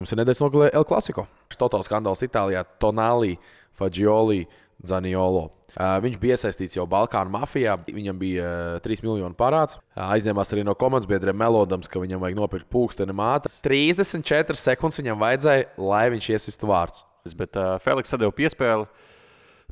Mums ir nedēļas nogalē El Clasico. Totāls skandāls Itālijā Tonali, Fagioli, Zaniolo. Viņš bija iesaistīts jau Balkānu mafijā. Viņam bija 3 miljonu parāds. Aizņēmās arī no komandas biedriem melodams, ka viņam vajag nopirkt pulksteni māte. 34 sekundes viņam vajadzēja, lai viņš iesistu vārds. Bet Feliks sadeva piespēli.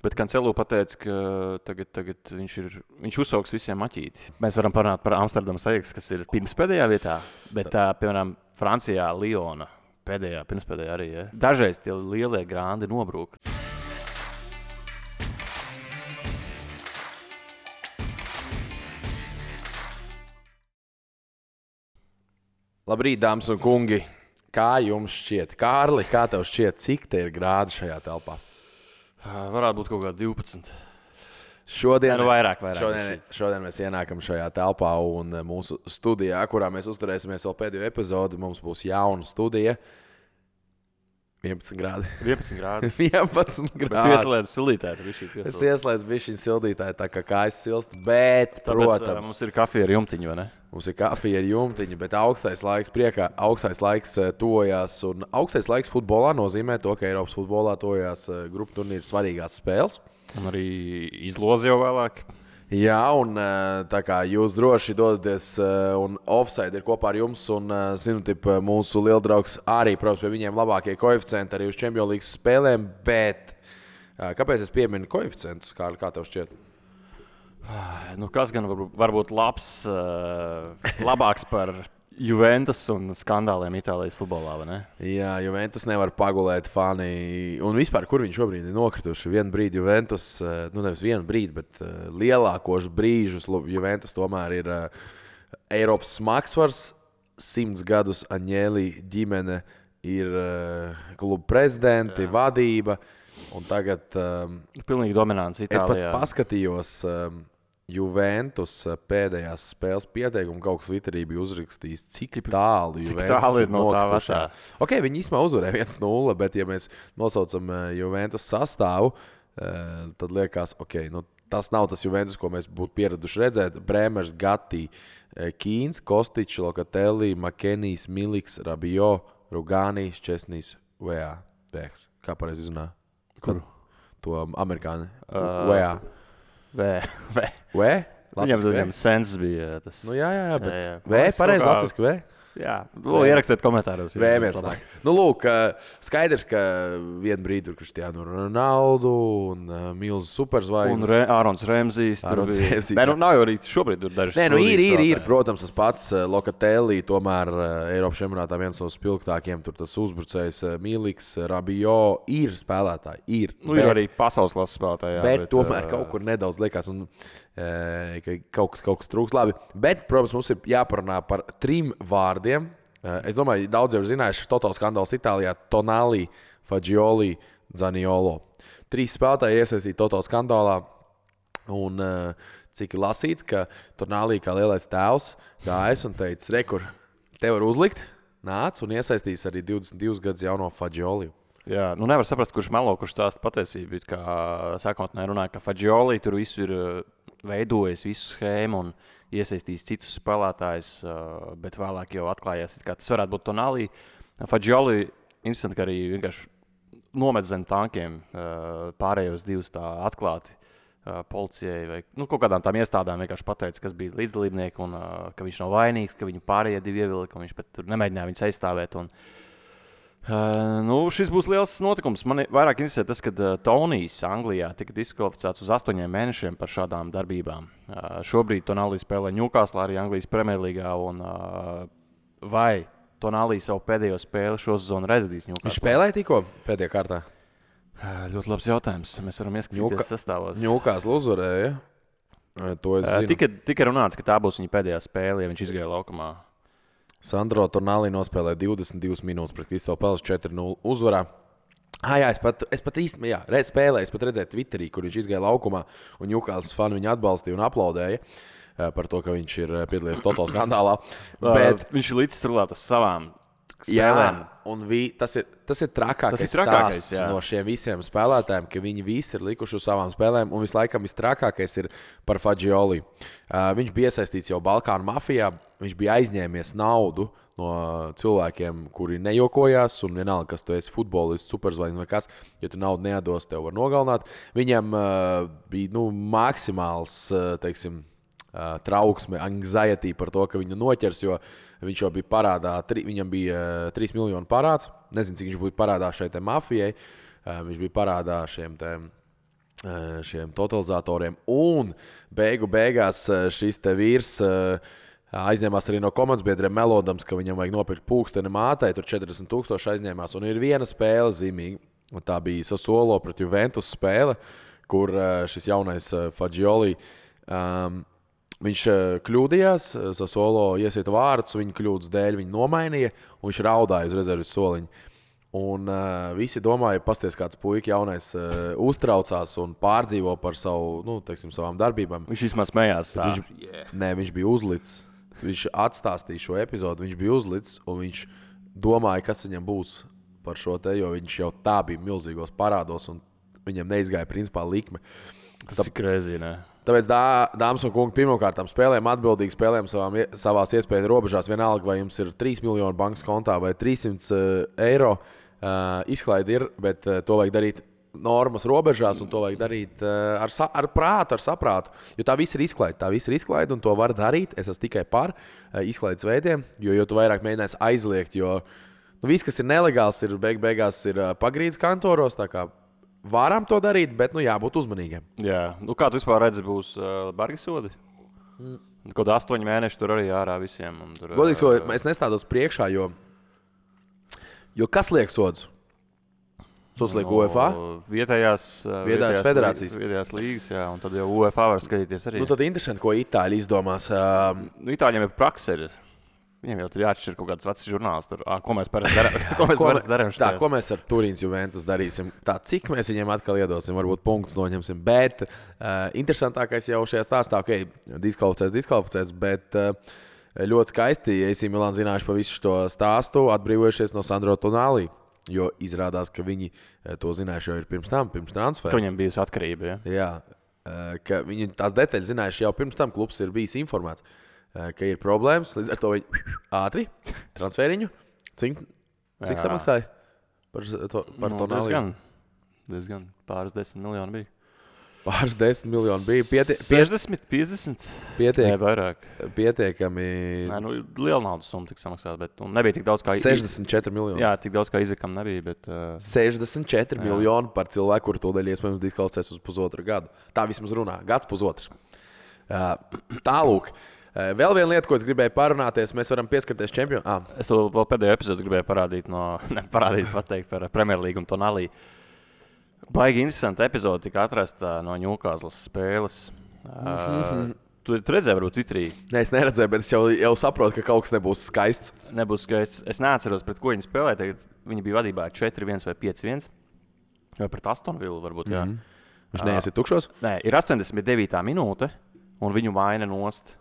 Bet Cancelo pateica, ka tagad viņš uzsauks visiem maķīti. Mēs varam parunāt par Amsterdamas Ajax, kas ir pirmspēdējā vietā, bet piemēram Francijā Liona pirmspēdējā arī. Ja? Dažreiz tie lielie grandi nobrūk. Labrīt, dāmas un kungi! Kā jums šķiet? Kārli, kā tev šķiet, cik te ir grādi šajā telpā? Varētu būt kaut kā 12. Šodien Vairāk. Mēs ienākam šajā telpā un mūsu studijā, kurā mēs uzturēsimies vēl pēdējo epizodi. Mums būs jauna studija. 11 grādi. 11 grādi. 11 grādi. Tu ieslēdz sildītāju. Es ieslēdzu bišķiņu sildītāju, tā kā kājas silst, bet, Tāpēc, protams, mums ir kafija ar jumtiņu, vai ne? Mums ir kafija ar jumtiņu, bet augstais laiks tojās. Un augstais laiks futbolā nozīmē to, ka Eiropas futbolā tojās grupu turnīru svarīgās spēles. Un arī izlozi jau vēlāk. Jā, un tā kā jūs droši dodaties, un Offside ir kopā ar jums, un mūsu lieldraugs arī, protams, pie viņiem labākie koeficienti arī uz Champions League spēlēm, bet kāpēc es pieminu koeficientus, kā tev šķiet? Nu, kas gan var būt labāks par Juventus un skandāliem Itālijas futbolā, vai ne? Jā, Juventus nevar pagulēt fani. Un vispār, kur viņi šobrīd ir nokrituši? Vienu brīdi Juventus, nevis vienu brīdi, bet lielākos brīžus Juventus tomēr ir Eiropas smagsvars. 100 gadus Aņēlī ģimene ir kluba prezidenti, vadība. Un tagad pilnīgi dominants Itālijā. Es pat paskatījos Juventus pēdējās spēles pieteikumu, kaut kas Twitterī bija uzrakstījis, cik tālu Juventus ir no tā vecā. Okay, viņi īstenībā uzvarēja 1-0, bet ja mēs nosaucam Juventus sastāvu, tad liekas, tas nav tas Juventus, ko mēs būtu pieraduši redzēt. Brēmers, Gatti, Kīns, Kostičs, Lokatelli, Makenijs, Miliks, Rabiot, Rugānijs, Česnijs, Vējā. Kā pareizi izrunā? Kuru? To amerikāni. Vējā. Viņam sens bija tas. Nu, jā, bet pareizi latviski, V? Jā, ierakstiet komentāros. Vēmies nāk. Nu, lūk, skaidrs, ka vienu brīdi tur Cristiano Ronaldo un milzu superzvaigznes. Un Ārons Remzijs. Nav jau arī šobrīd tur dažas. Ir, protams, tas pats Lokatelli, tomēr Eiropas čempionātā viens no spilgtākiem, tur tas uzbrucējs Miliks, Rabiot, ir spēlētāji. Ir arī pasaules klases spēlētāji. Bet tomēr kaut kur nedaudz liekas, ka kaut kas trūks labi. Bet, protams, mums ir jāparunā par 3 vārdiem. Es domāju, daudz jau ir zinājuši, ka totāls skandāls Itālijā Tonali, Fagioli, Zaniolo. 3 spēlētāji iesaistīti totāls skandālā. Un cik ir lasīts, ka Tonali kā lielais tēvs gājas un teica, rekur, te var uzlikt, nāc un iesaistīs arī 22 gadus jauno Fagioli. Jā, nevar saprast, kurš melo, kurš stāsta patiesību. Kā sākotnēji runāja, ka Fagioli tur visu ir veidojis visu schēmu un iesaistījis citus spēlētājus, bet vēlāk jau atklājās, ka tas varētu būt Tonali. Fagioli interesanti, ka arī vienkārši nomet zem tankiem pārējos 2 tā atklāti policijai vai kaut kādām tām iestādām vienkārši pateica, kas bija līdzdalībnieki un ka viņš nav vainīgs, ka viņu pārējie 2 ievilka, un viņš pat tur nemēģināja viņus aizstāvēt. Šis būs liels notikums. Man vairāk interesē tas, ka Tonijs Anglijā tika diskvalificēts uz 8 mēnešiem par šādām darbībām. Šobrīd Tonali spēlē Newcastle arī Anglijas Premjerlīgā. Vai Tonali savu pēdējo spēli šo sezonu rezidīs Newcastle? Viņš spēlēja tikko pēdējā kārtā? Ļoti labs jautājums. Mēs varam ieskatīties sastāvos. Newcastle uzvarēja. To es zinu. Tika runāts, ka tā būs viņa pēdējā spēle, ja viņš izgāja laukumā. Sandro Tonali nospēlēja 22 minūtes pret Crystal Palace 4-0 uzvarā. Es pat īstenībā spēlēju, es pat redzēju Twitterī, kur viņš izgāja laukumā, un Newcastle fani viņu atbalstīja un aplaudēja par to, ka viņš ir piedalījies totālā skandālā. Bet viņš ir līdz rulēt uz savām spēlēm. Jā, un tas ir trakākais stāsts no šiem visiem spēlētājiem, ka viņi visi ir likuši uz savām spēlēm, un vislaikam visstrakākais ir par Fagioli. Viņš bija iesaistīts jau Balkānu mafijā, viņš bija aizņēmies naudu no cilvēkiem, kuri nejokojās, un vienalga, kas tu esi futbolists, superzvaigznes vai kas, ja tu naudu nedos, tev var nogalināt. Viņam bija maksimāls, teiksim, trauksme, anxiety par to, ka viņu noķers, jo viņš jau bija parādā, viņam bija 3 miljonu parāds. Nezinu, cik viņš bija parādā šai mafijai. Viņš bija parādā šiem totalizatoriem. Un beigās šis te vīrs aizņēmās arī no komandas biedriem, melodams, ka viņam vajag nopirkt pulksteni mātei. Tur 40,000 aizņēmās. Un ir viena spēle zīmīga. Un tā bija Sassuolo pret Juventus spēle, kur šis jaunais Fagioli viņš kļūdījās, Sassuolo iesieta vārdus, viņa kļūdas dēļ viņa nomainīja, un viņš raudāja uz rezerves soliņu. Un visi domāja, pasties kāds puika jaunais uztraucās un pārdzīvo par savām darbībām. Viņš vismaz smējās. Viņš bija uzlicis. Viņš atstāstīja šo epizodu, viņš bija uzlicis, un viņš domāja, kas viņam būs par šo te, jo viņš jau tā bija milzīgos parādos, un viņam neizgāja principā likme. Tas ir krēzī, ne? Tāpēc, dāmas un kungi, pirmkārt spēlējam atbildīgi, spēlējam savās iespēju robežās. Vienalga, vai jums ir 3 miljoni bankas kontā vai 300 eiro. Izklaide ir, bet to vajag darīt normas robežās, un to vajag darīt ar prātu, ar saprātu. Jo tā viss ir izklaide, un to var darīt. Es esmu tikai par izklaides veidiem, jo tu vairāk mēģināsi aizliegt. Jo viss, kas ir nelegāls, ir beigās ir pagrīdes kantoros. Varam to darīt, bet jābūt uzmanīgiem. Jā, kā tu vispār redzi, būs bargi sodi? Kaut 8 mēneši tur arī ārā visiem. Godīgi sakot, es nestādos priekšā, jo kas liek sodus? Sods liek UEFA? Vietējās federācijas. Vietējās līgas, jā, un tad jau UEFA var skatīties arī. Tad interesanti, ko Itāļi izdomās. Itāļiem ir prakse. Viņam jau tur jāatšķir kaut kāds vecs žurnāls. Ko mēs parasti darām? Ko mēs ar Turīnas Juventus darīsim? Cik mēs viņiem atkal iedosim, varbūt punktus noņemsim. Bet interesantākais jau šajā stāstā, diskvalificēts, bet ļoti skaisti, ja AC Milan zinājuši pa visu šo stāstu, atbrīvojušies no Sandro Tonali. Jo izrādās, ka viņi to zinājuši jau ir pirms transfera. Ka viņam bijusi atkarība, ja? Jā, ka viņi tās detaļas zinājuši jau pirms tam, klubs ir bijis informēts. Ka ir problēmas, līdz ar to viņi ātri transferiņu. Cik samaksāja par Tonali? Diezgan pāris 10 miljoni bija. Pāris 10 miljoni bija. 60, 50? Nē, vairāk. Pietiekami. Nē, liela naudas summa tika samaksāta, bet nebija tik daudz kā... 64 miljoni. Jā, tik daudz kā Izakam nebija, bet... 64 miljoni par cilvēku, kuru tūdaļ iespējams diskvalificēs uz pusotru gadu. Tā vismaz runā. Gads pusotrs. Tālūk. Vēl viena lieta, ko es gribēju parunāties, mēs varam pieskarties čempionam. Es to vēl pēdējo epizodu gribēju pateikt par Premjerlīgu un Tonali. Baigi interesanta epizode tika atrasta no Ņūkāzlas spēles. Tu redzēji, varbūt Twitterī? Nē, es neredzēju, bet es jau saprotu, ka kaut kas nebūs skaists. Nebūs skaists. Es neatceros, pret ko viņi spēlēja. Tagad viņi bija vadībā 4-1 vai 5-1. Vai pret Aston Villu varbūt, jā. Viņš neiesiet tukšos? Nē, ir 89. minūte, un viņu maina nost.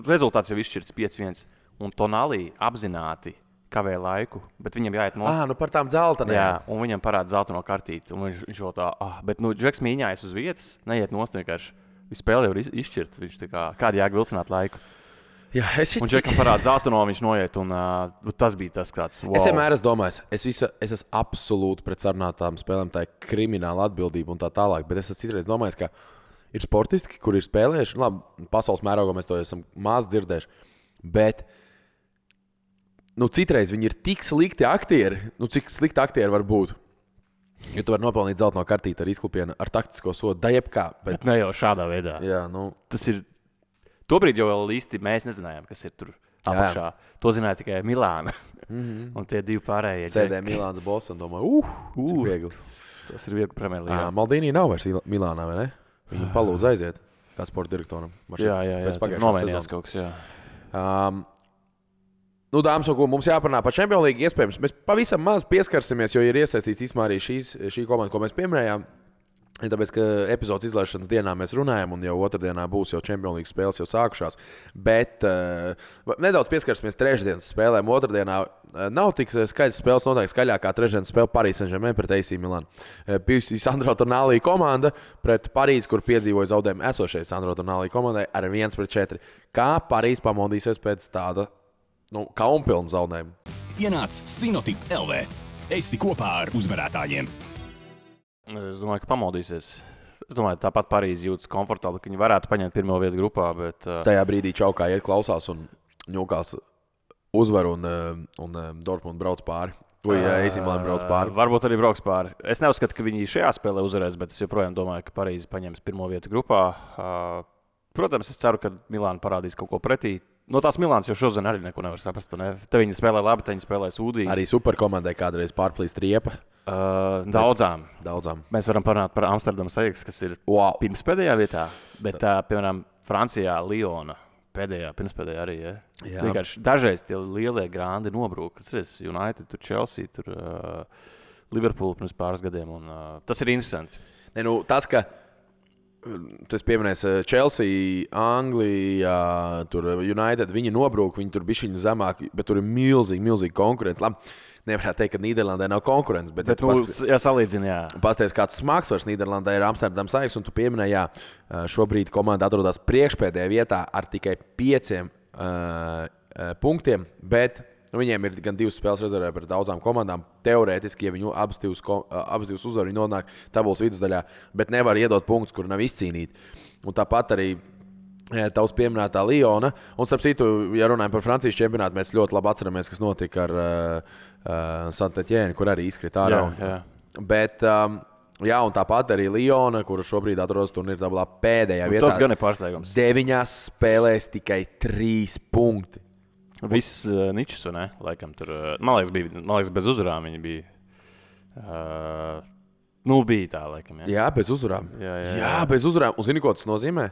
Rezultāts jau izšķirts 5-1, un Tonali apzināti kavē laiku, bet viņam jāiet nost. Par tām dzeltenēm. Jā, un viņam parāda zeltaino kartīti, un viņš jau tā, bet Džeks mīņājas uz vietas, neiet nost vienkārši. Viņš spēle jau ir izšķirt, viņš kādi jāk vilcināt laiku. Jā, Un Džekam parāda zeltaino, viņš noiet, un tas bija tas kāds. Wow. Es vienmēr esmu domājis, es esmu absolūti pret sarunātām spēlēm, tā ir krimināla atbildība un tā tālāk, bet es esmu citreiz domājis, ka ir sportisti, kuri ir spēlējuši. Labi, pasaules mērogā mēs to esam maz dzirdējuši. Bet citreiz viņi ir tik slikti aktieri. Cik slikti aktieri var būt? Jo tu vari nopelnīt zeltaino kartīti ar izklupienu, ar taktisko sodu, da jebkā. Bet ne jau šādā veidā. Jā, Tas ir... Tobrīd jau vēl īsti mēs nezinājām, kas ir tur apakšā. To zināja tikai Milāna. Un tie divi pārējie. Sēdēja Milāns boss un domāja, cik viegli. Tas ir viegli Premjerlīgā. Maldīnī nav vairs Milānā, vai ne? Viņu palūdz aiziet, kā sporta direktoram. Jā, nomainījās kaut kas, jā. Dāmas un kungi, mums jāparunā par Champions League iespējams. Mēs pavisam maz pieskarsimies, jo ir iesaistīts īstenībā arī šī komanda, ko mēs pieminējām. Tāpēc, ka epizodes izlaišanas dienā mēs runājam, un jau otrdienā būs jau Champions League spēles jau sākušās. Bet nedaudz pieskarsimies trešdienas spēlēm. Otrdienā nav tik skaidrs spēles, noteikti skaļākā trešdienas spēle Paris Saint-Germain pret AC Milan. Bijusi Sandro Tonali komanda pret Parīzi, kur piedzīvoja zaudējumu esošajai Sandro Tonali komandai ar 1-4. Kā Parīzi pamodīsies pēc tāda kaunpilnu zaudējumu. Ienāc Sinotip LV. Esi kopā ar uzvarētājiem. Es domāju, ka pamodīsies. Es domāju, tāpat Parīze jūtas komfortabli, ka viņi varētu paņemt pirmo vietu grupā. Bet, Tajā brīdī Čaukā iet klausās un ņūkās uzvar un Dortmund brauc pāri. Vai AC Milan brauc pāri? Varbūt arī brauks pāri. Es neuzskatu, ka viņi šajā spēlē uzvarēs, bet es joprojām domāju, ka Parīze paņems pirmo vietu grupā. Protams, es ceru, ka Milāna parādīs kaut ko pretī. No tās Milānas jau šodien arī neko nevar saprast. Ne? Te viņi spēlē labi, te viņi spēlē sūdīgi. Arī superkomandai kādreiz pārplīst riepa. Daudzām. Mēs varam parunāt par Amsterdamas Ajax, kas ir pirmspēdējā vietā. Bet, piemēram, Francijā Liona pēdējā, pirmspēdējā arī. Ja? Vienkārši dažreiz tie lielie grandi nobrūk. United, tur Chelsea, tur Liverpool pirms pāris gadiem. Un, tas ir interesanti. Tas, ka tas pieminēs Chelsea, Anglija, tur United, viņi nobrūk, viņi tur bišķiņu zemāk, bet tur ir milzīgi konkurence. Labi, nevarētu teikt, ka Nīderlandē nav konkurence, bet salīdzina, jā. Pasties, kāds smagsvars Nīderlandē ir Amsterdamas Ajax, un tu pieminēji, jā, šobrīd komanda atrodas priekšpēdējā vietā ar tikai 5 punktiem, bet viņiem ir gan 2 spēles rezervē pret daudzām komandām. Teorētiski, ja viņi abas divas uzvar, viņi nonāk tabulas vidusdaļā, bet nevar iedot punktus, kur nav izcīnīti. Un tāpat arī tavs pieminētā Liona. Un starp citu, ja runājam par Francijas čempionātu, mēs ļoti labi atceramies, kas notika ar Saint-Étienne, kur arī izkrita ārā. Jā. Bet, un tāpat arī Liona, kura šobrīd atrodas turnīra tabulā pēdējā vietā. Tas gan ir pārsteigums. 9 spēlēs tikai 3 punkti. Visas ničas, ne? Laikam tur, man liekas, bez uzvarām viņi bija. Bija tā, laikam. Jā, bez uzvarām. Jā, bez uzvarām. Un zini, ko tas nozīmē?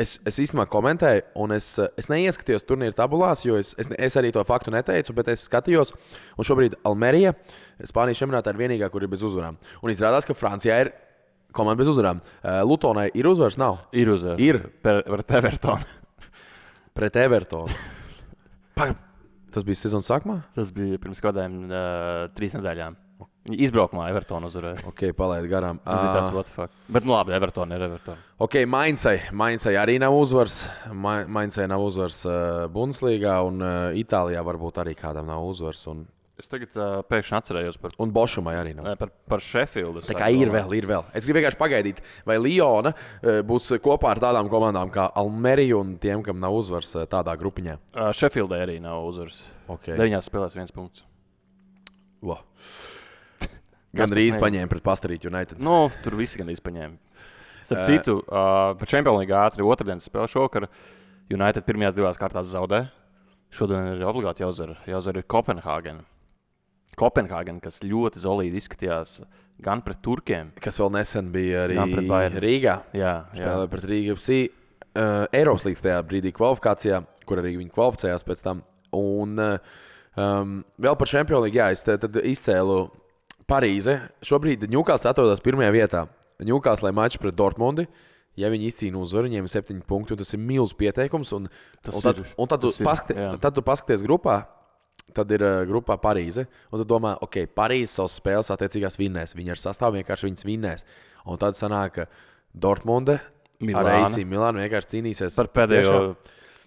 Es īstenībā komentēju, un es neieskatījos turnīra tabulās, jo es arī to faktu neteicu, bet es skatījos. Un šobrīd Almerija, Spānijas čempionātā, ir vienīgā, kur ir bez uzvarām. Un izrādās, ka Francijā ir komanda bez uzvarām. Lutonai ir uzvaras? Nav. Ir uzvaras. Ir. Pret Evertonu. Pret Evertonu. Tas bija sezonas sākumā? Tas bija pirms kādām 3 nedēļām. Viņi izbraukumā Evertonu uzvarēja. Ok, palaid garām. Tas bija tāds what the fuck. Bet labi, Evertonu ir Evertonu. Ok, Mainzai arī nav uzvars. Mainzai nav uzvars Bundeslīgā, un Itālijā varbūt arī kādam nav uzvars. Es tagad pēkšņi atcerējos par... Un Bošumai arī nav. Par Sheffieldu. Tā kā ir vēl. Es gribu vienkārši pagaidīt, vai Liona būs kopā ar tādām komandām kā Almerija un tiem, kam nav uzvars tādā grupiņā. Sheffieldai arī nav uzvars. Okay. 9 spēlēs 1 punkts. Gan drīz paņēma pret Pastarīt United. Tur visi gan drīz paņēma. Starp citu, par Champions League ātri otrdienas spēle šokar. United pirmajās 2 kārtās zaudē. Šodien ir obligāti jāuzvar Kopenhāgena. Kopenhāgena, kas ļoti zolīdi izskatījās gan pret turkiem. Kas vēl nesen bija arī Rīgā. Jā. Spēlēja pret Rīgu FC. Eiropas līgas tajā brīdī kvalifikācijā, kur arī viņi kvalificējās pēc tam. Un vēl par Champions League, es tad izcēlu Parīze. Šobrīd Newcastle atrodas pirmajā vietā. Newcastle mačs pret Dortmundi. Ja viņi izcīna uzvaru, viņiem ir 7 punkti, un tas ir milzīgs pieteikums. Tad tu paskaties grupā. Tad ir grupā Parīze. Un tad domā, ok, Parīze savas spēles attiecīgās vinnēs. Viņi ar sastāvu vienkārši viņas vinnēs. Un tad sanāk, ka Dortmunde ar AC Milānu vienkārši cīnīsies par pēdējo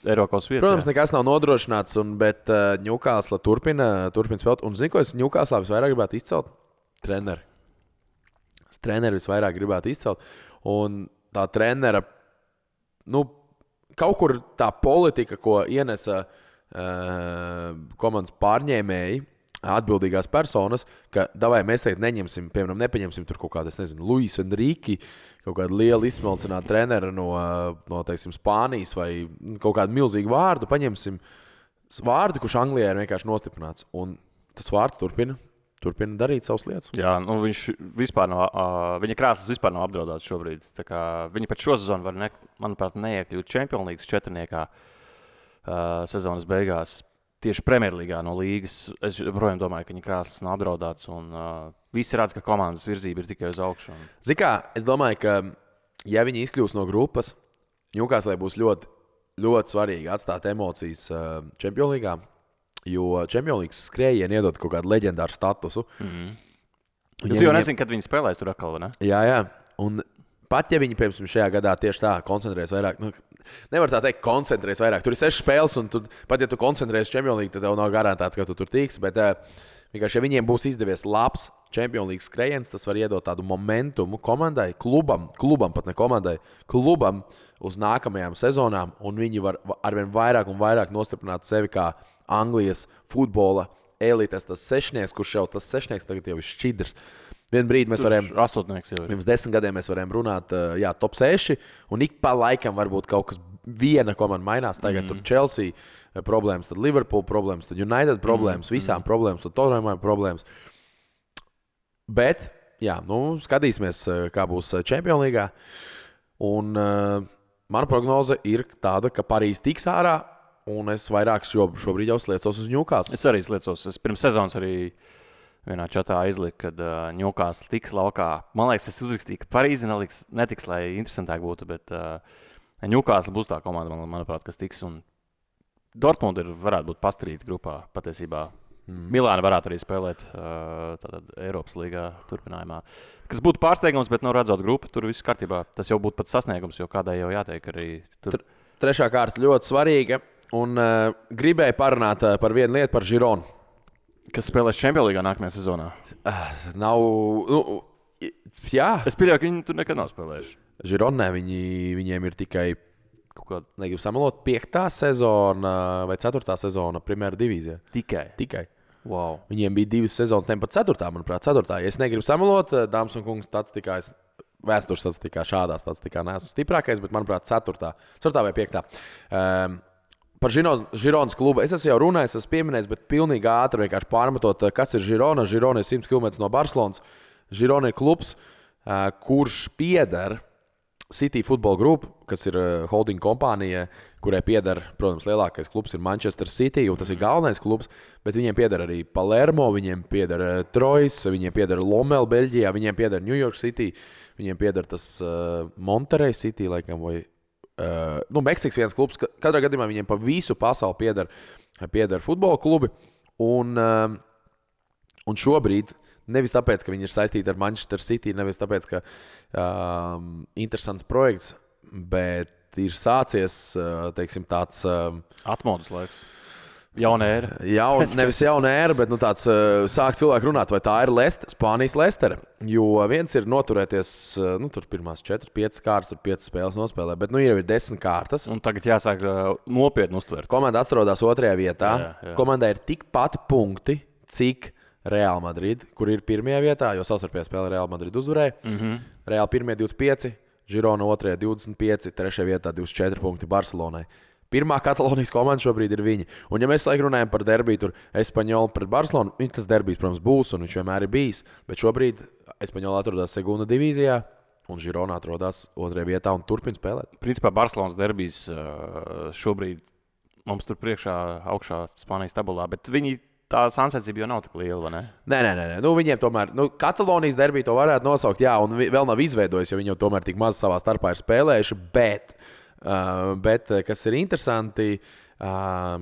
Eiropas vietu. Protams, nekas nav nodrošināts, bet Newcastle turpina spēlēt. Un zini, ko es Newcastle visvairāk gribētu izcelt? Treneri. Treneri visvairāk gribētu izcelt. Un tā trenera, kaut kur tā politika, ko ienesa komandas pārņēmēji, atbildīgās personas, ka mēs teikt neņemsim, piemēram, nepaņemsim tur kaut kādu, Luis Enrique, kaut kādu lielu izsmalcinātu treneru no teiksim, Spānijas vai kaut kādu milzīgu vārdu, paņemsim vārdu, kurš Anglijā ir vienkārši nostiprināts. Un tas vārds turpina darīt savas lietas. Jā, viņš vispār nav, viņa krāsas vispār nav apdraudēts šobrīd. Tā kā viņi pat šo sezonu var, manuprāt, neiekļūt Champions League 4. Sezonas beigās. Tieši Premjerlīgā no līgas. Es joprojām domāju, ka viņa krāsas nav apdraudētas. Visi redz, ka komandas virzība ir tikai uz augšu. Zini kā, es domāju, ka ja viņi izkļūs no grupas, Newcastle būs ļoti, ļoti svarīgi atstāt emocijas Champions League. Jo Champions League skrējieni iedod kaut kādu leģendāru statusu. Tu jau nezini, kad viņi spēlēs tur atkal, vai ne? Jā. Un pat ja viņi, piemēram, šajā gadā tieši tā koncentrēs vairāk, nevar tā teikt, koncentrēs vairāk. Tur ir 6 spēles, un pat ja tu koncentrēsies Champions League, tad tev nav garantēts, ka tu tur tiks. Bet vienkārši, ja viņiem būs izdevies labs Champions League skrējiens, tas var iedot tādu momentumu komandai, klubam pat ne komandai, klubam uz nākamajām sezonām, un viņi var arvien vairāk un vairāk nostiprināt sevi kā Anglijas futbola elites, tas sešnieks, kurš jau tas sešnieks tagad jau ir šķidrs. Vienu brīdi mēs varējām, pirms 10 gadiem mēs varējām runāt, top 6, un ik pa laikam varbūt kaut kas viena komanda mainās. Tagad tur Chelsea problēmas, tad Liverpool problēmas, tad United problēmas, visām problēmas, tad Tottenham problēmas. Bet, skatīsimies, kā būs Champions League. Un mana prognoze ir tāda, ka Parīze tiks ārā, un es vairāk šobrīd jau sliecos uz Newcastle. Es arī sliecos. Es pirms sezonas arī vienā čatā izliku, kad Newcastle tiks laukā. Man liekas, es uzrakstīju, ka Parīze netiks, lai interesantāk būtu, bet Newcastle būs tā komanda, manuprāt, kas tiks. Un Dortmund varētu būt pastrīta grupā patiesībā. Milāna varētu arī spēlēt Eiropas līgā turpinājumā. Kas būtu pārsteigums, bet redzot grupu, tur viss kārtībā. Tas jau būtu pat sasniegums, jo kādai jau jāteikt arī tur. Trešā kārta ļoti svarīga, un gribēju parunāt par vienu lietu, par Gironu. Kas spēlēs Champions League nākamajā sezonā? Nav. Jā. Es pieļauju, ka viņi tur nekad nav spēlējuši. Gironē viņiem ir tikai, negribu samalot, 5. sezona vai 4. sezona Primera divīzijā. Tikai. Wow. Viņiem bija 2 sezonas, ne pat 4. manuprāt, 4. Ja es negribu samalot, dāmas un kungs, statistikā, vēstures statistikā šādā statistikā neesmu stiprākais, bet manuprāt 4. vai 5. Par Gironas klubu es esmu jau runājis, esmu pieminējis, bet pilnīgi ātri vienkārši pārmetot, kas ir Girona. Girona ir 100 km no Barcelonas. Girona ir klubs, kurš pieder City Football Group, kas ir holding kompānija, kurai pieder, protams, lielākais klubs ir Manchester City, un tas ir galvenais klubs, bet viņiem pieder arī Palermo, viņiem pieder Troyes, viņiem pieder Lommel Beļģijā, viņiem pieder New York City, viņiem pieder tas Monterey City, laikam, vai Meksikas viens klubs. Katrā gadījumā viņiem pa visu pasauli pieder futbola klubi, un šobrīd nevis tāpēc, ka viņi ir saistīti ar Manchester City, nevis tāpēc, ka interesants projekts, bet ir sācies, teiksim, tāds atmodas laiks. Jauna ēra. Nevis jauna ēra, bet tāds sāk cilvēki runāt, vai tā ir Spānijas Leicester. Jo viens ir noturēties, tur pirmās 4-5 kārtas, tur 5 spēles nospēlē, bet jau ir 10 kārtas. Un tagad jāsāk nopietni uztvert. Komanda atrodas 2. vietā. Jā. Komandai ir tikpat punkti, cik Real Madrid, kur ir 1. vietā, jo savstarpējā spēlē Real Madrid uzvarēja. Real 1. 25, Girona 2. 25, 3. vietā 24 punkti Barcelonai. Pirmā Katalonijas komanda šobrīd ir viņa. Un, ja mēs runājam par derbiju, tur Espaņola pret Barcelonu, tas derbijs, protams, būs, un viņš vienmēr ir bijis. Bet šobrīd Espaņola atrodas Segunda divīzijā, un Girona atrodas 2. vietā un turpina spēlēt. Principā Barcelonas derbijs šobrīd mums tur priekšā augšā Spānijas tabulā, bet viņi tā sāncensība jau nav tik liela, vai ne? Nē. Viņiem tomēr, Katalonijas derbiju to varētu nosaukt, jā, un vēl nav izveidojis, jo viņi jau tomēr tik maz savā starpā ir spēlējuši, bet kas ir interesanti,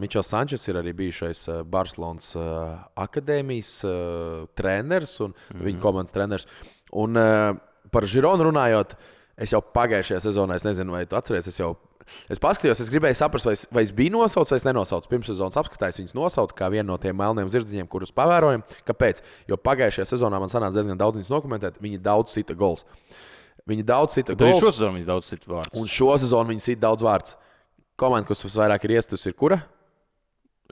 Mičels Sančes ir arī bijušais Barcelonas akadēmijas treneris un viņa komandas treneris. Un par Gironu runājot, es jau pagājušajā sezonā, es nezinu, vai tu atceries, es paskatījos, es gribēju saprast, vai es biju nosaucis vai es nenosaucu. Pirms sezonas apskatājos, viņas nosaucu kā vienu no tiem melniem zirdziņiem, kurus pavērojam. Kāpēc? Jo pagājušajā sezonā man sanāca diezgan daudz viņas dokumentēt, viņi daudz sita gols. Viņi daudz sita gols. Šo sezonu viņi daudz sita vārds. Un šo sezonu viņi sita daudz vārds. Komanda, kas visvairāk ir iestusi, ir kura?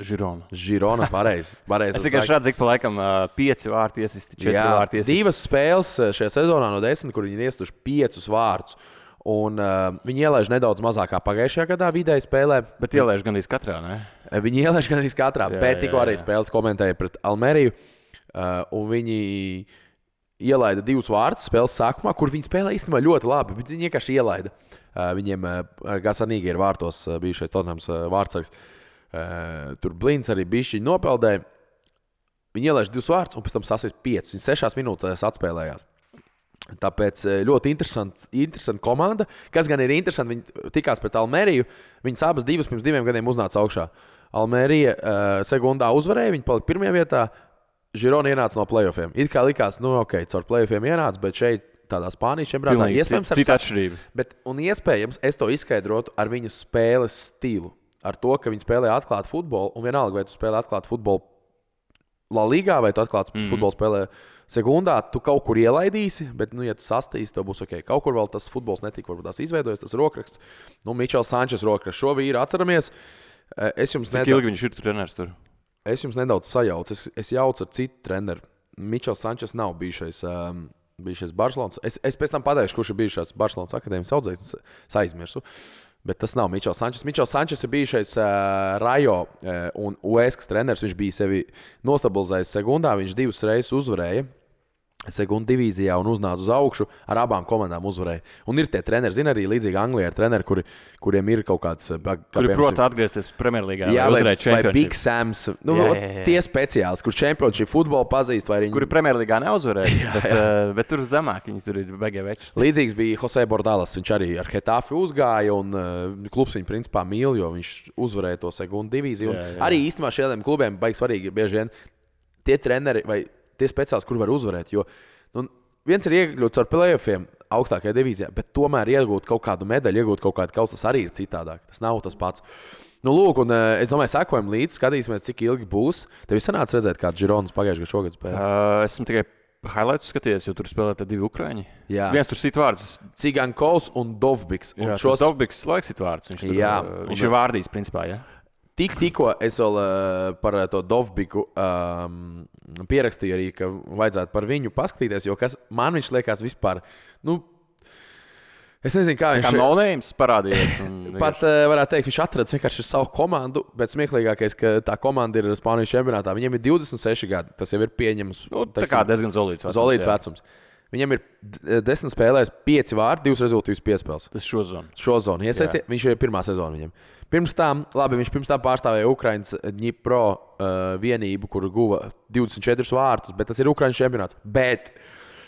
Girona, pareizi. Es tikai redzu, ka pa laikam 5 vārti iesisti, 4 vārti iesisti. 2 spēles šajā sezonā no 10, kur viņi ir iestuši 5 vārdus. Un viņi ielaiž nedaudz mazāk kā pagājušajā gadā vidēji spēlē. Bet ielaiž gandrīz katrā, ne? Viņi ielaiž gandrīz katrā, bet tikko arī spēles komentēja pret Almeriju. Un viņi ielaida 2 vārdus spēles sākumā, kur viņi spēlē īstenībā ļoti labi, bet viņi vienkārši ielaida. Viņiem Gasanīgi ir vārtos bijušais Tottenhams vārdsargs. Tur Blins arī bišķiņi nopeldēja. Viņi ielaiž 2 vārdus un pēc tam sasist 5. Viņi 6 minūtēs atspēlējās. Tāpēc ļoti interesanta komanda. Kas gan ir interesanti, viņi tikās pret Almeriju. Viņas abas divas pirms 2 gadiem uznāca augšā. Almerija sekundā uzvarēja, viņi palika 1. vietā. Girona ienāca no playoffiem. It kā likās, ok, caur playoffiem ienāca, bet šeit tādā Spānijas čempionātā. Iespējams, cita atšķirība. Un iespējams, es to izskaidrotu ar viņu spēles stilu. Ar to, ka viņi spēlē atklātu futbolu, un vienalga, vai tu spēlē atklātu futbolu La Ligā, vai tu atklātu futbolu spēlē sekundā, tu kaut kur ielaidīsi, bet, ja tu sastīsi, tev būs ok. Kaut kur vēl tas futbols netika, varbūt tās izveidojas, tas rokraksts. Mičels Sančes rokraksts. Šo vīru atceramies. Cik ilgi viņš ir treneris tur? Es jums nedaudz sajaucu. Es jaucu ar citu treneru. Mičels Sančes nav bijušais Barcelonas. Es pēc tam pateikšu, kurš ir bijušais Barcelonas akadēmijas audzēknis. Es aizmirsu. Bet tas nav Mičels Sančes. Mičels Sančes ir bijušais Rajo un Ueskas treneris. Viņš bija sevi nostabilizējis sekundā. Viņš 2 reizes uzvarēja sekundu divīzijā un uznāca uz augšu. Ar abām komandām uzvarēja. Un ir tie treneri, zina arī līdzīgi Anglijā, ir treneri, kuriem ir kaut kāds. Kuri prot atgriezties Premjerlīgā. Jā, vai Big Sams. Tie speciālisti, kurš čempionšīp futbolu pazīst. Kuri Premjerlīgā neuzvarēja, bet tur zemāk viņi tur ir beigē veči. Līdzīgs bija Jose Bordalas. Viņš arī ar Hetafi uzgāja un klubs viņu principā mīl, jo viņš uzvarēja to sekundu divīziju. Arī īstenībā šiem klubiem baigi svarīgi ir bieži vien tie treneri vai tie speciālisti, kur var uzvarēt. Jo viens ir iekļūts ar playoffiem augstākajā divīzijā, bet tomēr iegūt kaut kādu medaļu, iegūt kaut kādu kausu, tas arī ir citādāk. Tas nav tas pats. Lūk, un es domāju, sekojam līdzi, skatīsimies, cik ilgi būs. Tev sanāca redzēt, kāds Žironas pagājušajā gadā šogad spēlē? Esmu tikai highlights skatījies, jo tur spēlē 2 ukraiņi. Jā. Viens tur sit vārds. Cigankovs un Dovbiks. Un šos Dovbiks laiks sit vārds. Viņš ir vārdījis, principā, jā. Tikko es vēl par to Dovbiku pierakstīju arī, ka vajadzētu par viņu paskatīties, jo man viņš liekas vispār, es nezinu, kā viņš... Kā no-names parādījies. Pat varētu teikt, viņš atradis vienkārši savu komandu, bet smieklīgākais, ka tā komanda ir Spānijas čempionātā. Viņiem ir 26 gadi, tas jau ir pieņems. Tā kā diezgan zolīts vecums. Viņam ir 10 spēlēs, 5 vārdi, 2 rezultīvas piespēles. Tas šo zonu. Viņš jau ir pirmā sezona viņam. Viņš pirms tam pārstāvēja Ukraiņas Dņipro vienību, kur guva 24 vārtus, bet tas ir Ukraiņas čempionāts. Bet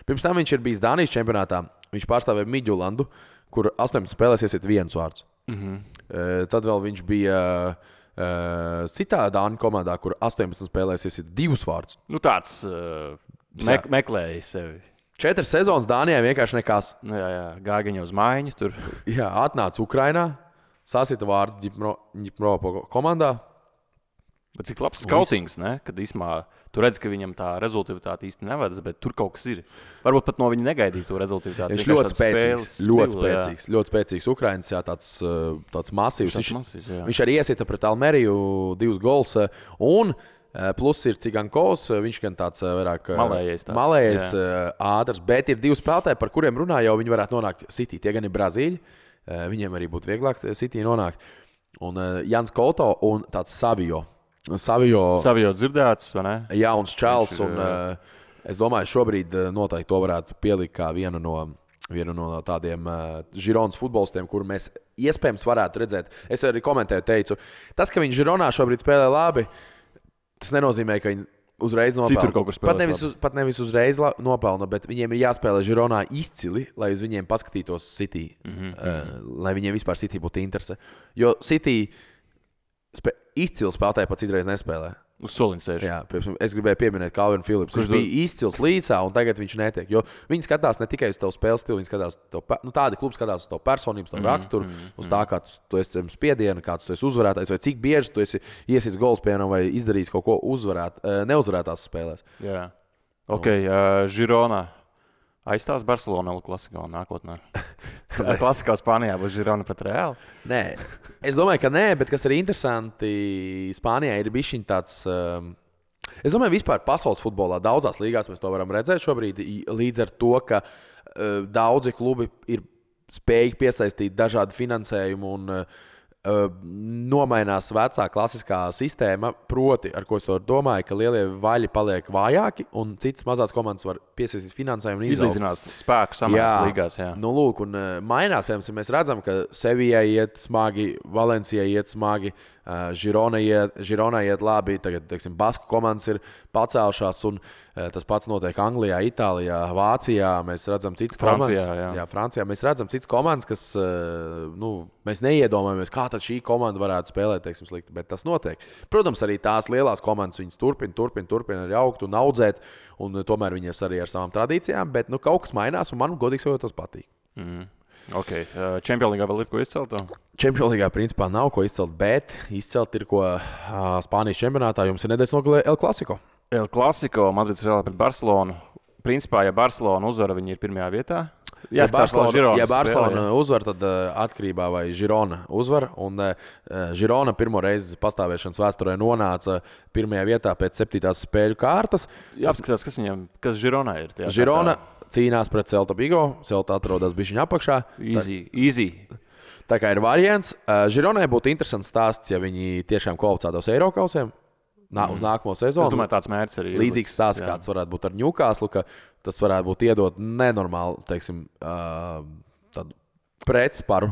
pirms tam viņš ir bijis Dānijas čempionātā. Viņš pārstāvēja Midjulandu, kur 18 spēlēs iesit 1 vārds. Tad vēl viņš bija citā Dāņu komandā, kur 18 spēlēs iesit 2 vārdus. Tāds meklēja sevi. 4 sezonas Dānijā vienkārši nekas. Jā, gājiņa uz mājiņu tur. Jā, atnāca Ukrainā, sasita vārds Dņipro komandā. Bet cik labs skautings, ne? Kad īsumā tu redz, ka viņam tā rezultātivitāte īsti nevedas, bet tur kaut kas ir. Varbūt pat no viņa negaidīja to rezultātivitāti. Viņš ļoti spēcīgs Ukraiņas, tāds masīvs. Viņš arī iesita pret Almeriju 2 gols. Un plus ir Cigankovs, viņš gan tāds vairāk malējais, ātrs, bet ir 2 spēlētāji, par kuriem runā jau viņi varētu nonākt City. Tie gan ir Brazīļi, viņiem arī būtu vieglāk City nonākt. Un Jans Koto un tāds Savio dzirdēts, vai ne? Jā, un Čāls. Es domāju, šobrīd noteikti to varētu pielikt kā vienu no tādiem Žironas futbolistiem, kuru mēs iespējams varētu redzēt. Es arī komentēju, teicu, tas, ka viņi Žironā šobrīd spēlē labi, tas nenozīmē, ka viņi uzreiz nopelna. Pat nevis uzreiz nopelna, bet viņiem ir jāspēlē Žironā izcili, lai uz viņiem paskatītos City, lai viņiem vispār City būtu interese. Jo City izcils spēlētāji pat citreiz nespēlē. Uz soliņa sēž. Jā, es gribēju pieminēt Calvinu Phillips. Viņš bija izcils līdzā, un tagad viņš netiek. Jo viņi skatās ne tikai uz tavu spēles stilu, viņi skatās tādi klubi skatās uz tavu personību, tavu raksturu, uz tā, kā tu esi spiediena, kāds tu esi uzvarētājs, vai cik bieži tu esi iesits gols pienam vai izdarījis kaut ko neuzvarētās spēlēs. Jā. Ok, Žirona. Aizstās Barcelona klasikā nākotnē. Klasikā Spānijā būs Žirona pret Reāli? Nē, es domāju, ka nē, bet kas ir interesanti, Spānijā ir bišķiņ tāds. Es domāju, vispār pasaules futbolā daudzās līgās mēs to varam redzēt šobrīd, līdz ar to, ka daudzi klubi ir spējīgi piesaistīt dažādu finansējumu un nomainās vecā klasiskā sistēma, proti, ar ko es to domāju, ka lielie vaļi paliek vājāki un citas mazās komandas var piesaistīt finansējumu un izlīdzinās spēku samērās līgās. Jā. Lūk, un mainās, piemēram, mēs redzam, ka Sevijai iet smagi, Valencijai iet smagi, Žironai iet labi, tagad, teiksim, Basku komandas ir pacēlušās, un tas pats notiek Anglijā, Itālijā, Vācijā. Mēs redzam citas komandas. Jā, Francijā. Mēs redzam citas komandas, kas, mēs neiedomājamies, kā tad šī komanda varētu spēlēt, teiksim, slikti, bet tas notiek. Protams, arī tās lielās komandas, viņas turpina arī augt un audzēt, un tomēr viņas arī ar savām tradīcijām, bet kaut kas mainās, un man, godīgi sakot, tas patīk. Okay. Champions League vēl ir ko izcelt? Champions League principā nav ko izcelt, bet izcelt ir ko Spānijas čempionātā. Jums ir nedēļas nogalē El Clasico. El Clasico, Madrids Real pret Barcelonu. Principā, ja Barcelona uzvara, viņi ir pirmajā vietā. Ja Barcelona uzvar, tad atkarībā vai Girona uzvar. Un Girona pirmo reizi pastāvēšanas vēsturē nonāca pirmajā vietā pēc 7. spēļu kārtas. Jāapskatās, kas Gironā ir. Girona cīnās pret Celta Vigo. Celta atrodas bišķiņa apakšā. Easy. Tā kā ir variants. Gironai būtu interesants stāsts, ja viņi tiešām kvalificētos Eirokausiem uz nākamo sezonu. Es domāju, tāds mērķis arī ir. Līdzīgs stāsts, kāds varētu būt ar Newcastle, ka tas varētu būt iedot nenormāli, teiksim, tādu pretsparu,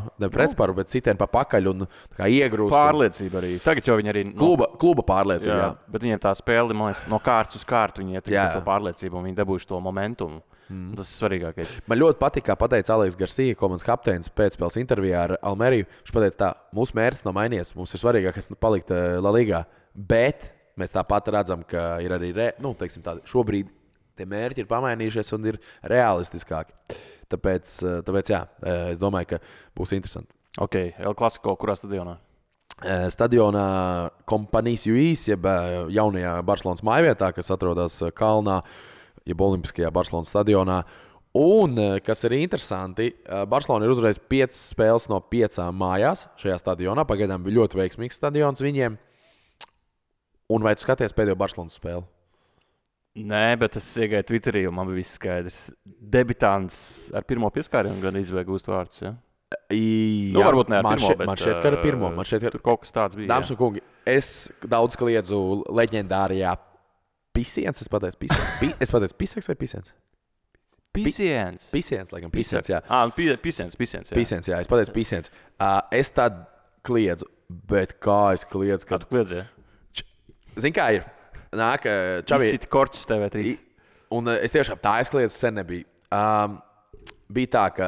bet citiem pa pakaļ un iegrūst. Pārliecība arī. Tagad jau viņi arī... Kluba pārliecība, jā. Bet viņiem tā spēle, man liekas, no kārtas uz kārtu viņi iet to pārliecību un viņi dabūjuši to momentumu. Tas ir svarīgākais. Man ļoti patīk, kā pateica Aleks Garcia, komandas kapteinis pēcspēles intervijā ar Almeriju. Viņš pateica tā, mūsu mērķis nav mainījies, mums ir svarīgākais palikt La Ligā, bet mēs tāpat redzam, ka ir arī, šobrīd tie mērķi ir pamainījušies un ir realistiskāki. Tāpēc jā, es domāju, ka būs interesanti. Ok, El Clasico, kurā stadionā? Stadionā Kompanijas Juīs, jeb jaunajā Barcelonas mājvietā, kas atrodas Kalnā, jeb Olimpiskajā Barcelonas stadionā. Un, kas ir interesanti, Barcelona ir uzvarējusi 5 spēles no 5 mājās šajā stadionā. Pagaidām bija ļoti veiksmīgs stadions viņiem. Un vai tu skaties pēdējo Barcelonas spēli? Nē, bet es iegāju Twitterī, un man bija viss skaidrs. Debitants ar pirmo pieskārienu gan izvēja gūst vārdus, ja? Jā, varbūt ne ar pirmo, bet... Man šķiet, ka ar pirmo. Tur kaut kas tāds bija. Dāmas un kungi, es daudz kliedzu leģendārajā Pisiens, es pateicu Piseks vai Pisiens? Pisiens, laikam, Pisiens, jā. Pisiens, jā. Pisiens, jā, es pateicu Pisiens. Es tad kliedzu, bet kā es kliedzu, Kā tu kliedzi, ja? Zini, kā ir? Nāk, Čavi... Izsiti korķus TV3. Un es tiešām tā aizkliedzu sen nebija. Bija tā, ka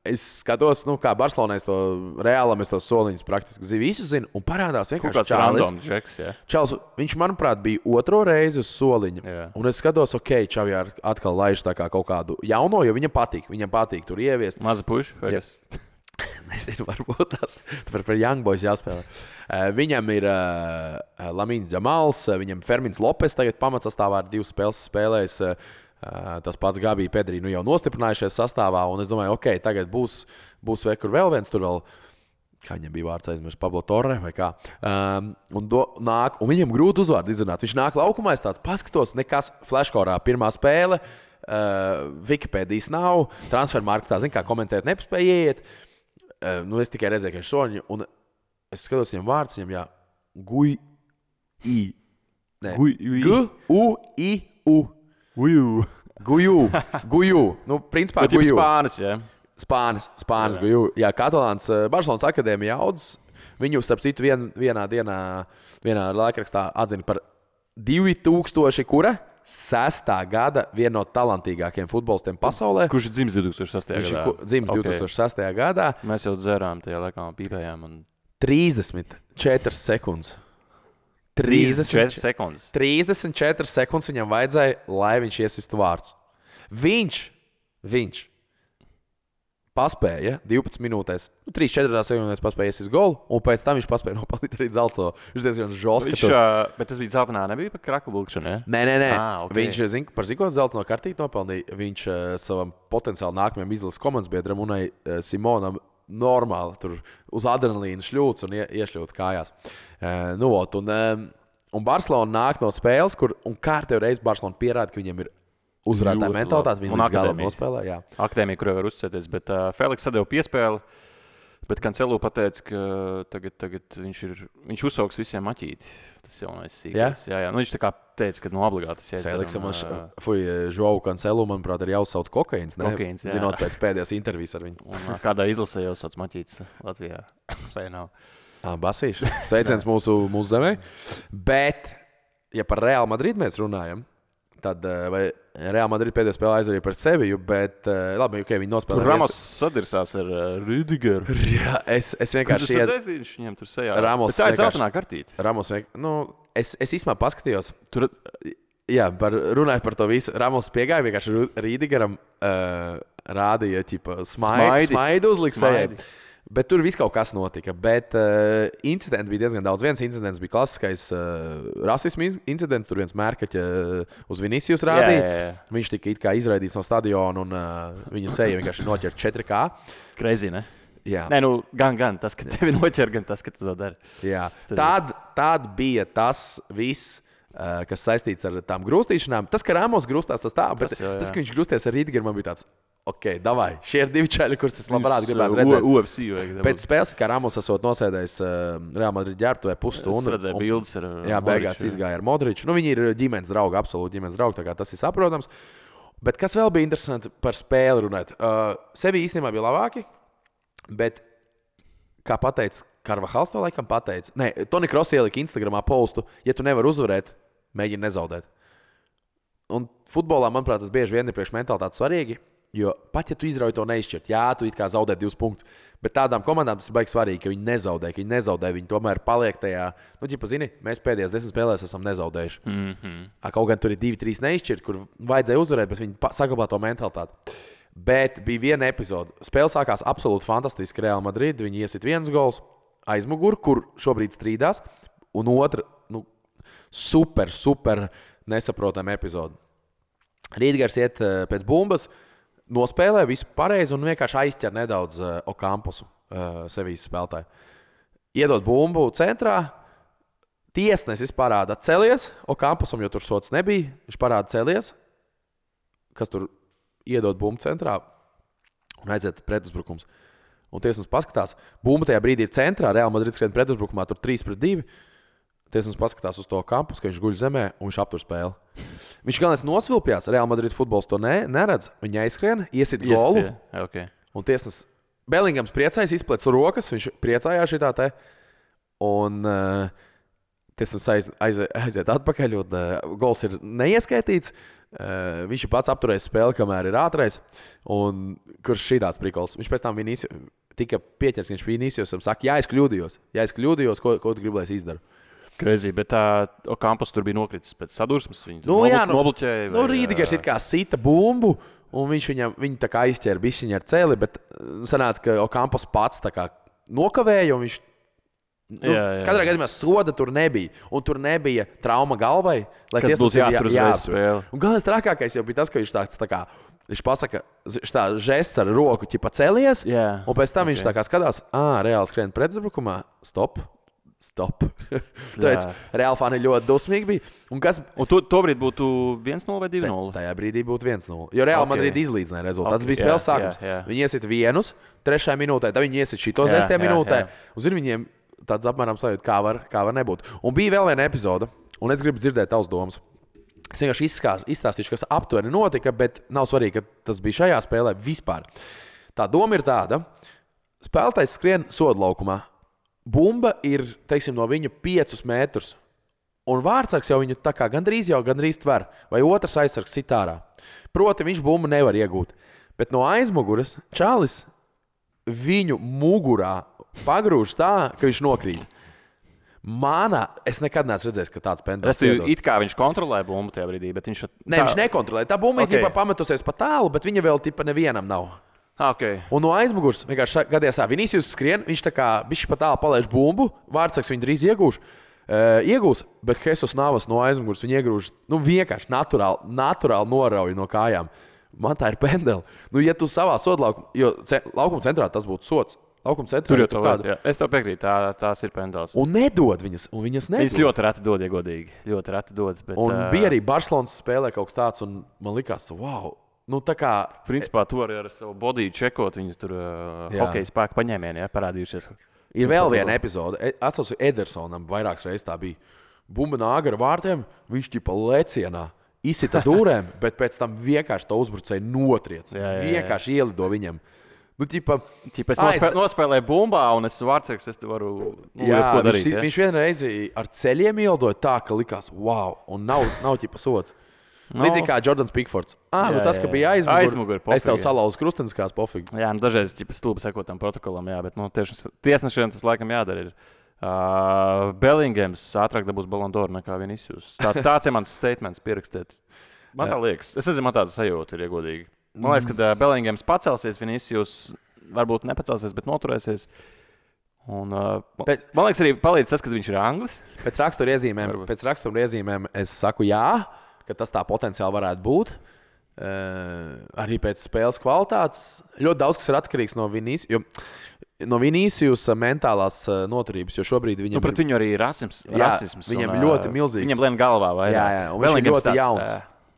es skatos, kā Barcelonā es to Reālam, es to soliņus praktiski visu zinu, un parādās vienkārši Čāls. Viņš, manuprāt, bija otro reizi uz soliņa. Jā. Un es skatos, Čavi atkal laiž tā kā kaut kādu jauno, jo viņam patīk tur ieviest. Maza puša, vai kas? Nezinu, varbūt tas par Young Boys jāspēlē. Viņam ir Lamīns Džamals, viņam Fermins Lopes tagad pamatsastāvā ar 2 spēles spēlējis. Tas pats Gabi Pedri jau nostiprinājušies sastāvā, un es domāju, tagad būs vēl viens, tur vēl, kā viņam bija vārds aizmirst, Pablo Torre vai kā. Un viņam grūti uzvārdu izrunāt. Viņš nāk laukumā, es tāds paskatos, nekas flashkorā pirmā spēle, Wikipēdijas nav, transfermarktā, kā komentēt nepaspēja ieiet. Es tikai redzēju, ka ir soņi, un es skatos viņam vārds, viņam G-U-I-U. Guju. Principā Guju. Spānis, jā. Spānis, Guju. Jā, Katalāns Barcelonas akadēmija audzes. Viņu, starp citu, vienā laikrakstā atzina par 2006. gada vienu no talantīgākajiem futbolistiem pasaulē. Kurš ir dzimis 2006. gadā? Viņš dzimis 2006. gadā. Mēs jau dzērām tajā laikā, pīpējām. 34 sekundes. 34 sekundes. 34 sekundes viņam vajadzēja, lai viņš iesistu vārds. Viņš paspēja 12 minūtēs, 3-4 sekundēs paspēja iesist golu, un pēc tam viņš paspēja nopelnīt arī zelto. Viņš diezgan žosts. Bet tas bija zeltainā, nebija par kraklu bulkšanu, ja? Nē. Okay. Viņš, par zikot zeltaino kartīti nopelnīja, viņš savam potenciāli nākamajam izlases komandas biedram Unai Simonam normāli tur uz adrenalīna šļūts un iešļūts kājās. Un Barcelona nāk no spēles, kur kārtējo reizi Barcelona pierāda, ka viņiem ir uzvarētāja mentalitāte. Viņi līdz galam nospēlē. Jā. Akadēmija, kurai var uzticēties, bet Feliks sadeva piespēli, bet Cancelo pateica, ka tagad viņš uzsauks visiem maķīti. Tas jaunais sīkais. Jā. Viņš tā kā teica, ka obligāti tas jāizdara. Feliksam Joao Cancelo, manuprāt, ir jāuzsauc kokaīns. Zinot pēc pēdējās intervijas ar viņu. Un kādā izlasē jāuzsauc maķītis Latvijā. Vai nav? Basīši. Sveiciens mūsu zemē. Bet, ja par Real Madrid mēs runājam, tad Real Madrid pēdējā spēlē aizvarēja par Seviju, bet labi, okay, viņi nospēlēja. Ramos sadirsās ar Rüdigeru. Jā, es vienkārši Viņš viņam tur sejā. Ramos Tā ir zeltainā kartīte. Ramos es īstenībā paskatījos. Jā, runājot par to visu. Ramos piegāja vienkārši Rüdigeram rādīja smaidu uzlikt. Bet tur viss kaut kas notika. Bet incidenti bija diezgan daudz. Viens incidents bija klasiskais rasismu incidents. Tur viens mērkaķa uz Vinicius rādīja. Jā. Viņš tika it kā izraidīts no stadiona un viņa seja vienkārši noķerta 4K. Crazy, ne? Jā. Nē, nu, gan tas, ka tevi noķer, gan tas, ka tu to dari. Jā. Tad bija tas viss, kas saistīts ar tām grūstīšanām. Tas, ka Ramos grūstās, tas tā, bet tas, ka viņš grūsties ar Rīdgeru, man bija tāds. Ok, davai, šie ir 2 čaļi, kurus es labprāt gribētu redzēt. UFC vajag. Pēc spēles, kā Ramos esot nosēdējis Real Madrid ģērbtuvē pusstundu. Es redzēju bildes ar Jā, beigās izgāja ar Modriču. Nu, viņi ir ģimenes draugi, absolūti ģimenes draugi, tā kā tas ir saprotams. Bet kas vēl bija interesanti par spēli runāt? Sevi īstenībā bija labāki, bet, kā pateica Karvahals to laikam pateica, Toni Kross ielika Instagramā postu, ja tu nevari uzvarēt, mēģini nezaudēt. Un futbolā, manuprāt, tas bieži vien ir priekš mentalitātes svarīgi. Jo pat ja tu izrauj to neizšķirt, jā, tu it kā zaudē 2 punktus, bet tādām komandām tas ir baigi svarīgi, ka viņi nezaudē, viņi tomēr paliek tajā, zini, mēs pēdējās 10 spēlēs esam nezaudējuši. Kaut gan tur ir 2-3 neizšķirt, kur vajadzēja uzvarēt, bet viņi saglabā to mentalitāti. Bet bija viena epizode. Spēle sākās absolūti fantastiski Real Madrid, viņi iesit 1 gols aizmuguri, kur šobrīd strīdās, un otra, super nesaprotama epizode. Rīdgers iet pēc bumbas, nospēlē visu pareizi un vienkārši aizķer nedaudz Okamposu, Sevijas spēlētāju. Iedod bumbu centrā, tiesnesis parāda celies, Okampusam, jo tur sots nebija, viņš parāda celies, kas tur iedod bumbu centrā un aiziet pretuzbrukums. Un tiesnesis paskatās, bumba tajā brīdī ir centrā, Real Madrid skrien pretuzbrukumā, tur 3-2. Tiesnesis paskatās uz to Okampus, ka viņš guļ zemē un viņš aptur spēli. Viņš galvenais nosvilpjās, Real Madrid futbols to neredz. Viņa aizskrien, iesit golu. Okay. Un tiesnesis Bellingams priecājas, izplec rokas, viņš priecājās šitā te. Un tiesnesis aiziet atpakaļ un gols ir neieskaitīts. Viņš ir pats apturējis spēli, kamēr ir ātrais. Un kurš šīdāds prikols. Viņš pēc tam tika pieķers, viņš Viniciusam saka, ja es kļūdījos, ko tu gribi, lai es izdaru? Crazy, bet Okampus tur bija nokritis pēc sadursmes. Viņu nobloķēja. Rīdgers it kā sita bumbu, un viņu tā kā aizķēra bišķiņa ar celi, bet sanāca, ka Okampus pats tā kā nokavēja, un viņš katrā gadījumā soda tur nebija. Un tur nebija trauma galvai, lai tiesas būtu jātur. Un galvenais trakākais jau bija tas, ka viņš tā kā viņš pasaka, tā žests ar roku ķipa celies, un pēc tam viņš tā kā skatās, reāli skrien pretuzbrukumā, stop. Tāpēc Real fani ļoti dusmīgi bija. Un tobrīd būtu 1-0 vai 2-0? Tajā brīdī būtu 1-0. Jo Real Madrid izlīdzināja rezultātu. Tas bija spēles sākums. Viņi iesit 1, 3. minūtē, tad viņi iesit šitos 10. minūtē. Un zini, viņiem tāds apmēram sajūt, kā var nebūt. Un bija vēl viena epizode, un es gribu dzirdēt tavas domas. Es vienkārši izstāstīšu, kas aptuveni notika, bet nav svarīgi, ka tas bija šajā spēlē vispār. Tā doma ir tāda. Spēlētājs skrien sodlaukumā. Bumba ir, teiksim, no viņa 5 metrus. Un vārdsargs jau viņu tā kā gandrīz tver. Vai otrs aizsargs sit ārā. Proti, viņš bumbu nevar iegūt. Bet no aizmuguras čalis viņu mugurā pagrūž tā, ka viņš nokrīt. Es nekad neesmu redzējis, ka tāds pendels iedod. It kā viņš kontrolē bumbu tajā brīdī, bet viņš... Viņš nekontrolē. Tā bumba ir pametusies pa tālu, bet viņa vēl nevienam nav. Okay. Un no aizmugures vienkārši gadījās tā, Vinicius skrien, viņš tā kā bišķi pa tālu palaiž bumbu, vārdsargs viņu drīz iegūs, bet Jesus Navas no aizmugures viņu iegrūž, vienkārši naturāli norauj no kājām. Man tā ir pendeli. Ja tu savā sodlaukumā, jo laukuma centrā tas būtu sots. Laukuma centrā tur jau kāda. Es tev piekrītu, tās ir pendels. Un nedod viņas, nedod. Viņas ļoti reti dod, ja godīgi. Ļoti reti dod. Bet, un bija arī Barcelonas spēlē kaut kas tāds, un man likās, wow. Tā kā... Principā tu arī ar savu bodiju čekot, viņas tur hokeja spēku paņēmieni, parādījušies. Ir vēl viena epizode. Atceros, Edersonam vairākas reizes tā bija. Bumba nāk ar vārtiem, viņš ķipa lecienā, izsita dūrēm, bet pēc tam vienkārši to uzbrucēju notriec. Vienkārši ielido viņam. Nu, ķipa, Es nospēlēju bumbā, un es vārdsargs, es te varu ko darīt. Viņš vienreiz ar ceļiem ieldoja tā, ka likās, wow, un nav ķipa sots. Līdzīgi kā Jordans Pickfords. Tas, ka bija aizmugurē, es tev salauzu krusteniskās pofīgi. Jā, dažreiz stulbi sekot tam protokolam, jā, bet tiesnešiem tas laikam jādara. Bellingams ātrāk dabūs Ballon d'Or nekā Vinicius. Tāds ir mans statements pierakstīt. Man tā liekas. Es nezinu, man tāda sajūta ir iegodīgi. Man liekas, ka Bellingams pacelsies, Vinicius varbūt nepacelsies, bet noturēsies. Un, man liekas, arī palīdz tas, ka viņš ir anglis. Pēc rakstura iezīmēm es saku jā, ka tas tā potenciāli varētu būt. Arī pēc spēles kvalitātes. Ļoti daudz kas ir atkarīgs no Vinicius mentālās noturības, jo šobrīd viņam pret viņu arī ir rasisms. Viņam ir ļoti milzīgs. Viņam lien galvā vairāk. Jā, un viņš ir ļoti jauns.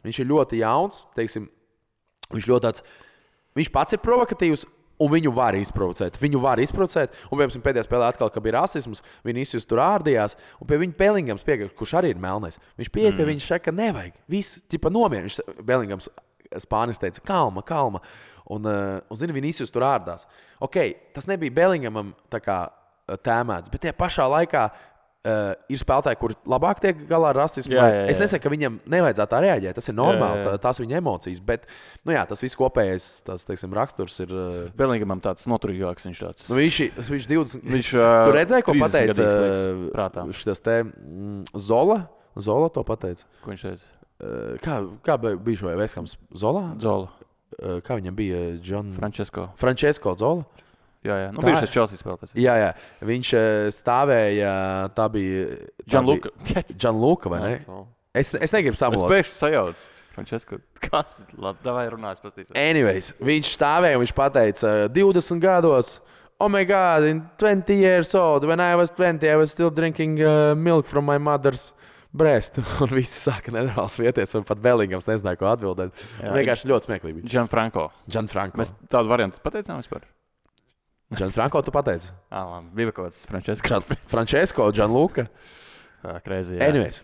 Viņš ir ļoti jauns, teiksim, viņš pats ir provokatīvs, un viņu var izprovocēt. Un, piemēram, pēdējā spēlē atkal, kad bija rasisms, Vinicius tur ārdījās, un pie viņa Bellingams piegāja, kurš arī ir melnais. Viņš pieiet pie viņa šeit, ka nevajag. Viss, tipa nomierina. Bellingams Spānis teica, kalma. Un zini, Vinicius tur ārdās. Ok, tas nebija Bellingamam tā kā tēmēts, bet tie pašā laikā ir spēlētāji, kuri labāk tiek galā ar rasismu. Jā. Es nesaku, ka viņam nevajadzētu tā reaģēt. Tas ir normāli, tās viņa emocijas. Bet tas viss kopējais raksturs ir. Bellingamam tāds noturīgāks viņš tāds. Viņš 20. Tu redzēji, ko pateica šis te Zola? Zola to pateica. Ko viņš teica? Kā bija šo Veskams? Zola? Kā viņam bija? Francesco Zola? Jā. Bija šis Chelsea spēlētājs. Jā. Viņš stāvēja, tā bija Gianluca, vai ne? Es negribu samulot. Es pēkšņi sajaucu. Francesco, kāds? Labi, runājas pastīšos. Anyways, viņš stāvēja un viņš pateica 20 gados, oh my God, in 20 years old, when I was 20, I was still drinking milk from my mother's breast. Un viss sāka nenormāls vieties, un pat Bellingams nezināja, ko atbildēt. Vienkārši ļoti smieklīgi. Gianfranco. Mēs tādu variantu pateicām vispār? Gianfranco, tu pateici? Bija kaut kāds Francesco. Francesco, Gianluca. Crazy, jā. Anyways.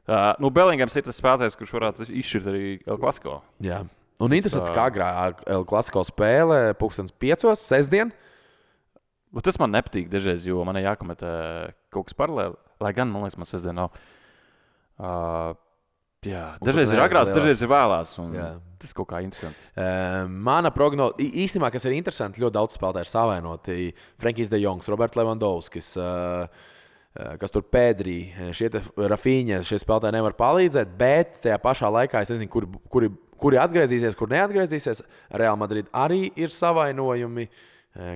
Bellingams ir tas spēlētājs, kurš varētu izšķirt arī El Clasico. Jā. Un interesanti, kā agrāk El Clasico spēle 5:00 sestdien. Tas man nepatīk dažreiz, jo man ir jākomentē kaut kas paralēli. Lai gan, man liekas, man sestdien nav. Dažreiz ir agrās, dažreiz ir vēlās. Tas kaut kā interesanti. Mana prognoze, īstenībā, kas ir interesanti, ļoti daudz spēlētāju ir savainoti. Frankijs de Jongs, Roberts Levandovskis, kas tur Pedri, Rafinha, šie spēlētāji nevar palīdzēt, bet tajā pašā laikā es nezinu, kuri atgriezīsies, kur neatgriezīsies. Real Madrid arī ir savainojumi,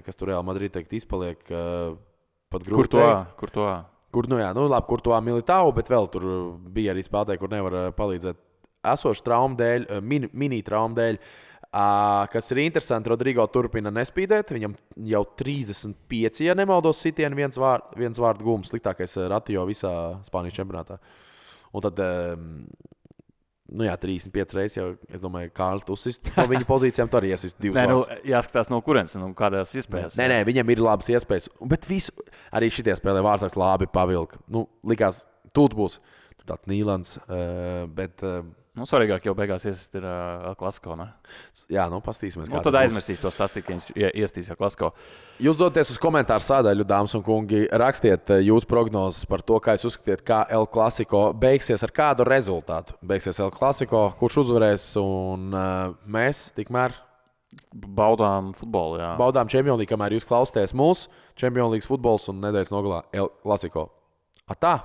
kas tur Real Madrid teikt izpaliek pat grūti teikt. Kur to? Kur to Militao, bet vēl tur bija arī spēlētāji, kur nevar palīdzēt esošu traumu dēļ, mini traumu dēļ. Kas ir interesanti, Rodrigo turpina nespīdēt. Viņam jau 35, ja nemaldos, sitieni viens vārdu gums, sliktākais ratio visā Spānijas čempionātā. Un tad, 35 reizes jau, es domāju, Kārlis uzsist no viņa pozīcijām, tur arī iesist 2 vārdus. Jāskatās no kurienes, kādās iespējas. Nē, viņam ir labas iespējas. Bet arī šitie spēlē vārdsargs labi pavilka. Likās, tūt būs tāds Nīlands, bet... Svarīgāk jau beigās iesist ir El Clasico, ne? Jā, pastīsimies. Tad aizmirsīs to stāstīt, ka viņš iestīs El Clasico. Jūs doties uz komentāru sādaļu, dāmas un kungi, rakstiet jūsu prognozes par to, kā jūs uzskatiet, kā El Clasico beigsies, ar kādu rezultātu. Beigsies El Clasico, kurš uzvarēs, un mēs tikmēr baudām futbolu, jā. Baudām Champions League, kamēr jūs klausāties mūsu Champions League futbols un nedēļas nogalā El Clasico. Atā!